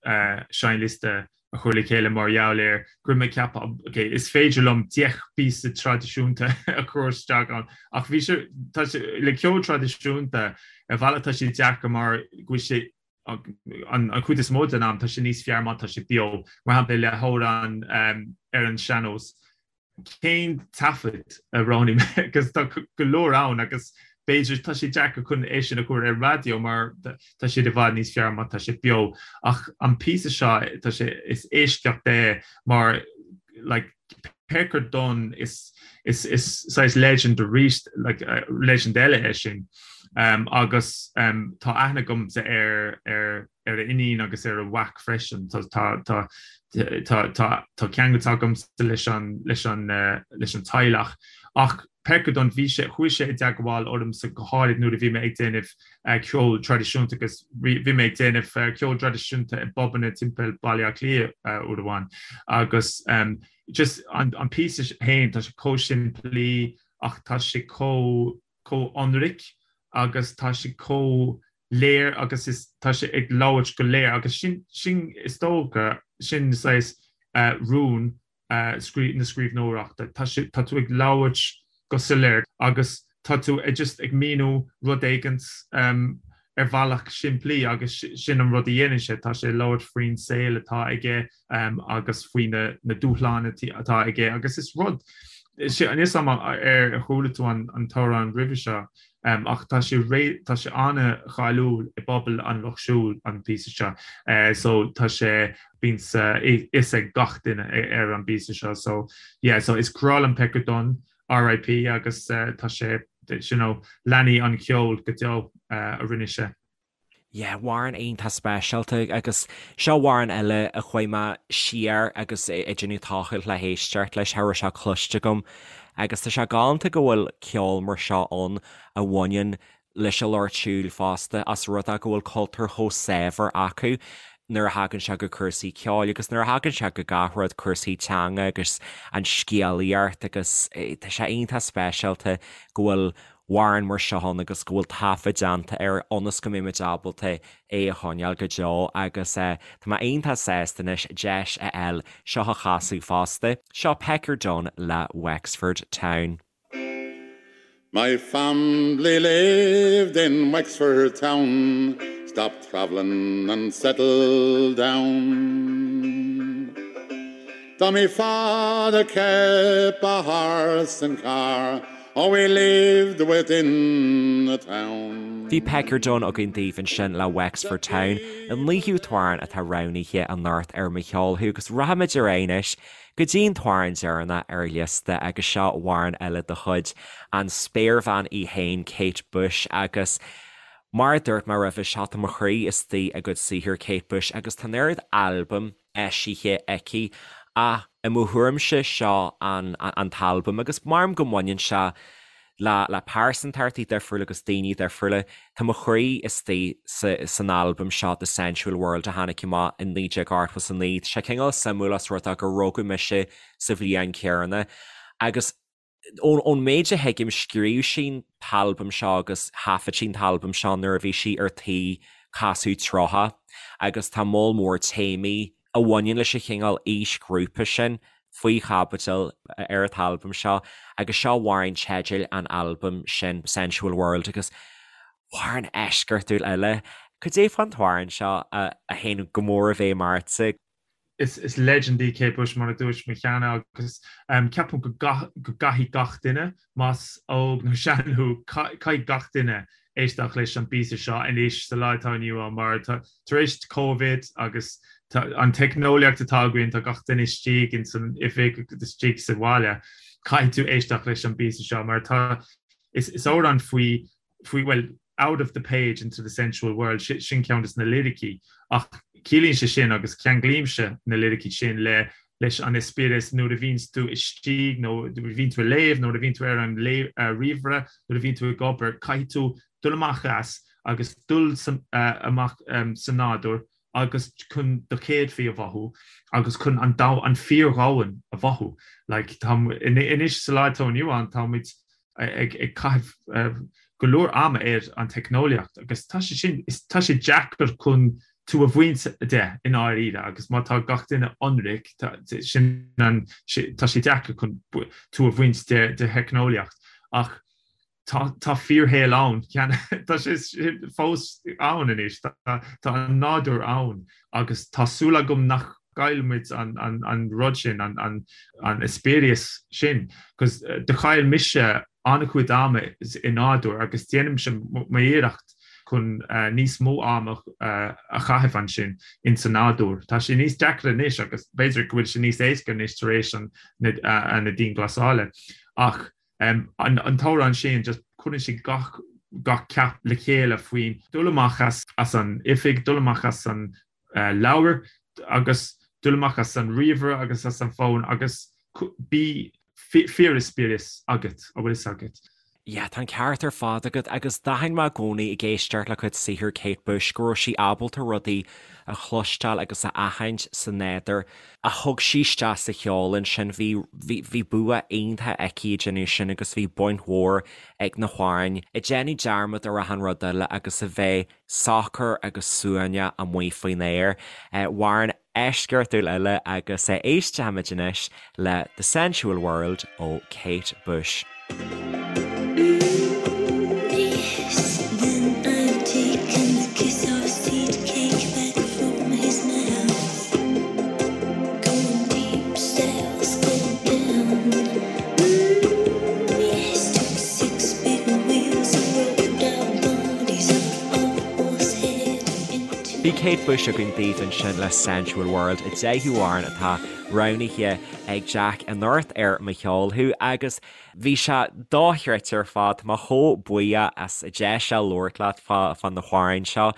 seinnliosta a chur le chéile mar gheall ar go raibh mé ag ceapadh, ok, is féidir liom 10 bpíosa traidisiúnta a chur isteach ann, ach bhí sé, tá sé, le ceol traidisiúnta, ar bhealach tá sé deacair mar go bhfuil sé, an chuid is mó den am, tá sé níos fearr má tá sé beo, mar shampla le hamhrán ar an sean-nós. cén taifead a roghnaigh mé agus tá go leor ann agus b'fhéidir tá sé deacair chun é sin a chur ar raidió mar tá siad i bhfad níos fearr má tá sé beo ach an píosa seo tá sé is eisceacht é mar like Pecker Dunne is is is saghas legend arís like uh, legend eile é sin um, agus um, tá aithne agamsa ar ar ar a iníon agus ar a mhac freisin. Tá tá tá tá tá ceangal agamsa leis an leis an leis an teaghlach. Ach Pecker Dunne bhí sé chuaigh sé i dteagmháil ormsa go háirid nuair a bhí mé ag déanamh ceol traidisiúnta agus bhí mé ag déanamh ceol traidisiúnta i bpubanna timpeall Baile Átha Cliath uair amháin agus just an an píosa féin tá sé chomh simplí ach tá sé chomh chomh ionraic. agus tá sé chomh léir agus is tá sé ag labhairt go léir agus sin sin is dócha sin saghas rún na scríbhneoireachta. Tá sé tá tú ag labhairt go soiléir agus tá tú ag just ag míniú rud éigint ar bhealach simplí agus sin an rud a dhéanann sé, tá sé ag labhairt faoin saol atá aige agus faoi na dúshláin atá aige agus is rud níl a fhios agam ar chuala tú an t-amhrán roimhe seo ach tá sé tá sé an-cháiliúil i bpobal an Lucht Siúil an píosa seo so tá sé bíonn a fhios ag gach duine ar an bpíosa seo so yeah so is grá liom Pecker Dunne RIP agus tá sé you know leanfaidh an ceol go deo a rinne sé. Yeah, amhrán iontach speisialta agus seo amhrán eile a chuaigh mé siar agus ag déanamh tochailt le héisteacht leis, cha raibh sé cloiste agam agus tá sé galánta go bhfuil ceol mar seo ann a bhaineann leis an lucht siúil fosta as rud é go bhfuil cultúr chomh saibhir acu nuair a thagann sé go cúrsaí ceoil agus nuair a thagann sé go gach rud, cúrsaí teanga agus an scéalaíocht agus tá sé iontach speisialta go bhfuil amhrán mar seo ann agus go bhfuil taifead déanta air ionas go mbeidh muid ábalta é a choinneáil go deo agus tá mé iontach sásta anois deis a fháil seo a chasadh fosta. Seo Pecker Dunne le Wexford Town. My family lived in Wexford town, Stopped travelling and settled down. Though me father kept a horse and car, Oh we lived within the town. Bhí Pecker Dunne againn daoibh ansin le Wexford Town, an naoú t-amhrán atá roghnaithe anocht ar Mo Cheol Thú agus rachaimid ar aghaidh anois go dtí an t-amhrán deireanach ar an liosta agus seo amhrán eile de chuid an spéirbhean í féin Kate Bush agus mar a dúirt mé roimhe seo tá mo chroí istigh i gcuid saothair Kate Bush agus tá an oiread albam eisithe aici ach i mo thuairimse seo an an t-albam agus maram go mbaineann sé le le pearsantachtaí difriúla agus daoine difriúla. Tá mo chroí istigh sa san albam seo The Sensual World a tháinig amach in 1989. Tá sé cineál suimiúil os rud é gur rugadh mise sa bhliain chéanna agus ón ón méid a thuigim scríobh sí an t-albam seo agus thaifead sí an t-albam seo nuair a bhí sí ar tí casadh 30 agus tá moll mór téamaí a bhaineann leis an chineál aoisghrúpa sin faoi chaibidil ar an t-albam seo agus seo amhrán teidil an albaim sin, Sensual World, agus amhrán eisceachtúil eile. Cad é fán t-amhrán seo a théann go mór i bhfeidhm ortsa? Is legend í Kate Bush mar a dúirt mé cheana agus ceapaim go gcaithfidh gach duine, más óg nó sean thú, caithfidh gach duine éisteacht leis an bpíosa seo anois sa lá atá inniu ann mar tá tar éis Covid agus tá an teicneolaíocht atá againn, tá gach duine istigh in san oifig agus istigh sa bhaile, caithfidh tú éisteacht leis an bpíosa seo mar tá is is amhrán faoi faoi bhuel out of the page into the sensual world sin ceann de na liricí ach ciallaíonn sé sin agus ceanglaímse na liricí sin le leis an eispéireas nuair a bhíonns tú istigh nó nuair a bhíonn tú ag léamh, nuair a bhíonn tú ar an ríomhaire, nuair a bhíonn tú ag obair, caithfidh tú dul amach as agus dul amach sa nádúr agus chun do chéadfaí a mhothú agus chun an domhan, an fíordhomhan a mhothú. Like, tá, anois sa lá atá inniu ann, tá muid ag caitheamh go leor ama ar an teicneolaíocht agus tá sé sin, tá sé deacair chun tú a bhaint de i ndáiríre agus má tá gach duine ionraic, sin an, tá sé deacair chun tú a bhaint de de theicneolaíocht ach tá tá fíorshaol ann, tá sé fós ann anois, tá an nádúr ann agus tá súil agam nach gcaillfimid an rud sin, an eispéireas sin, cos do chaill mise an-chuid ama i nádúr agus déanaimse m'iarracht chun níos mó ama a chaitheamh ansin in sa nádúr. Tá sé níos deacra anois agus b'fhéidir go bhfuil sé níos éasca anois tar éis na dianghlasála ach an t-amhrán sin just cuireann sé gach gach ceap le chéile faoin dul amach as an oifig, dul amach as an leabhar agus dul amach as an ríomhaire agus as an bhfón agus bí fíoreispéireas agat, an bhfuil fhios agat. Yeah, tá an ceart ar fad agat agus d'aithin mé i gcónaí ag éisteacht le cuid saothar Kate Bush go raibh sí ábalta rudaí a chloisteáil agus a aithint sa nádúr a thug sí isteach sa cheol ansin. Bhí, bhí, bhí bua iontach aici ag déanamh sin agus bhí baint mhór ag na hamhráin ag déanamh dearmad ar achan rud eile agus a bheith socair agus suaimhneach amuigh faoin aer. Amhrán eisceachtúil eile agus éistfimid anois le The Sensual World ó Kate Bush. Bhí Kate Bush againn daoibh ansin le Sensual World, an deichiú amhrán atá roghnaithe ag Jack anocht ar Mo Cheol Thú agus bhí sé dochreidte ar fad, tá mé chomh buíoch as an deis seo labhairt leat fá na hamhráin seo.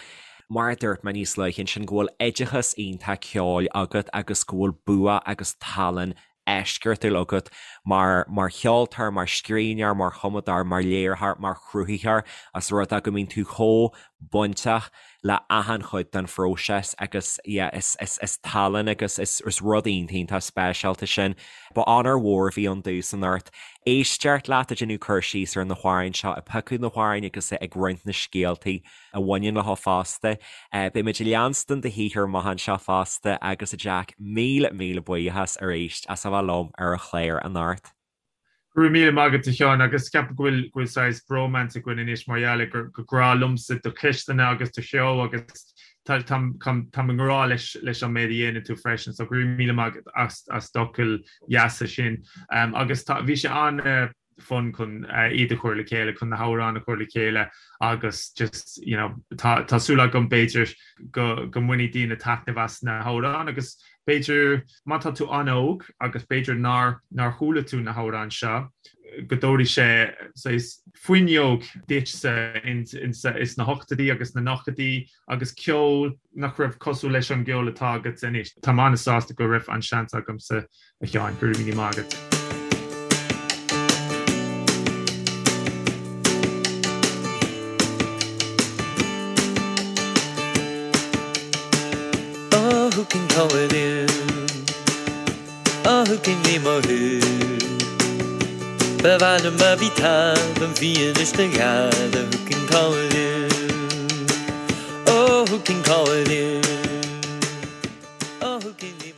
Mar a dúirt mé níos luaithe ansin go bhfuil oideachas iontach ceoil agat agus go bhfuil bua agus tallann eisceachtúil agat mar mar cheoltóir, mar scríbhneoir, mar chumadóir, mar léiritheoir, mar chruthaitheoir, as rud é go mbíonn tú chomh bainteach le achan chuid den phróiseas agus yeah is is is tallann agus is is rud iontach iontach speisialta sin. Ba onóir mhór a bhí ann domhsa anocht éisteacht leat ag déanamh cur síos ar na hamhráin seo, ag piocadh na hamhráin agus ag roinnt na scéaltaí a bhaineann leo fosta. Beidh muid ag leanstan do shaothar amach anseo fosta agus a Jack, míle míle buíochas arís as a bheith liom ar an chlár anocht. Go raibh míle maith agat a Sheáin agus ceapaim go bhfuil go bhfuil saghas bromance againn anois mar gheall ar gur gur grá liomsa do cheisteanna agus do cheol agus tá táim táim i ngrá leis leis an méid a dhéanann tú freisin so go raibh míle maith agat as as d'fhocail dheasa sin agus tá bhí sé an fun chun iad a chur le chéile, chun na hamhráin a chur le chéile agus just, you know, tá tá súil agam b'fhéidir go go mbainfidh daoine taitneamh as na hamhráin agus b'fhéidir má tá tú an-óg agus b'fhéidir nár nár chuala tú na hamhráin seo go dtabharfaidh sé saghas fuinneog duitse in in sna hochtóidí agus na nóchaidí agus ceol nach raibh cosúil leis an gceol atá agat anois. Táim an-sásta go raibh an seans agamsa A Sheáin, go raibh míle maith agat. Oh, who can call it in? Oh, who can ní mothú? Ba mhaith liom má bhí talamh bhí anois do gheala Who can call it in? Oh, who can call it in? Oh, who can ní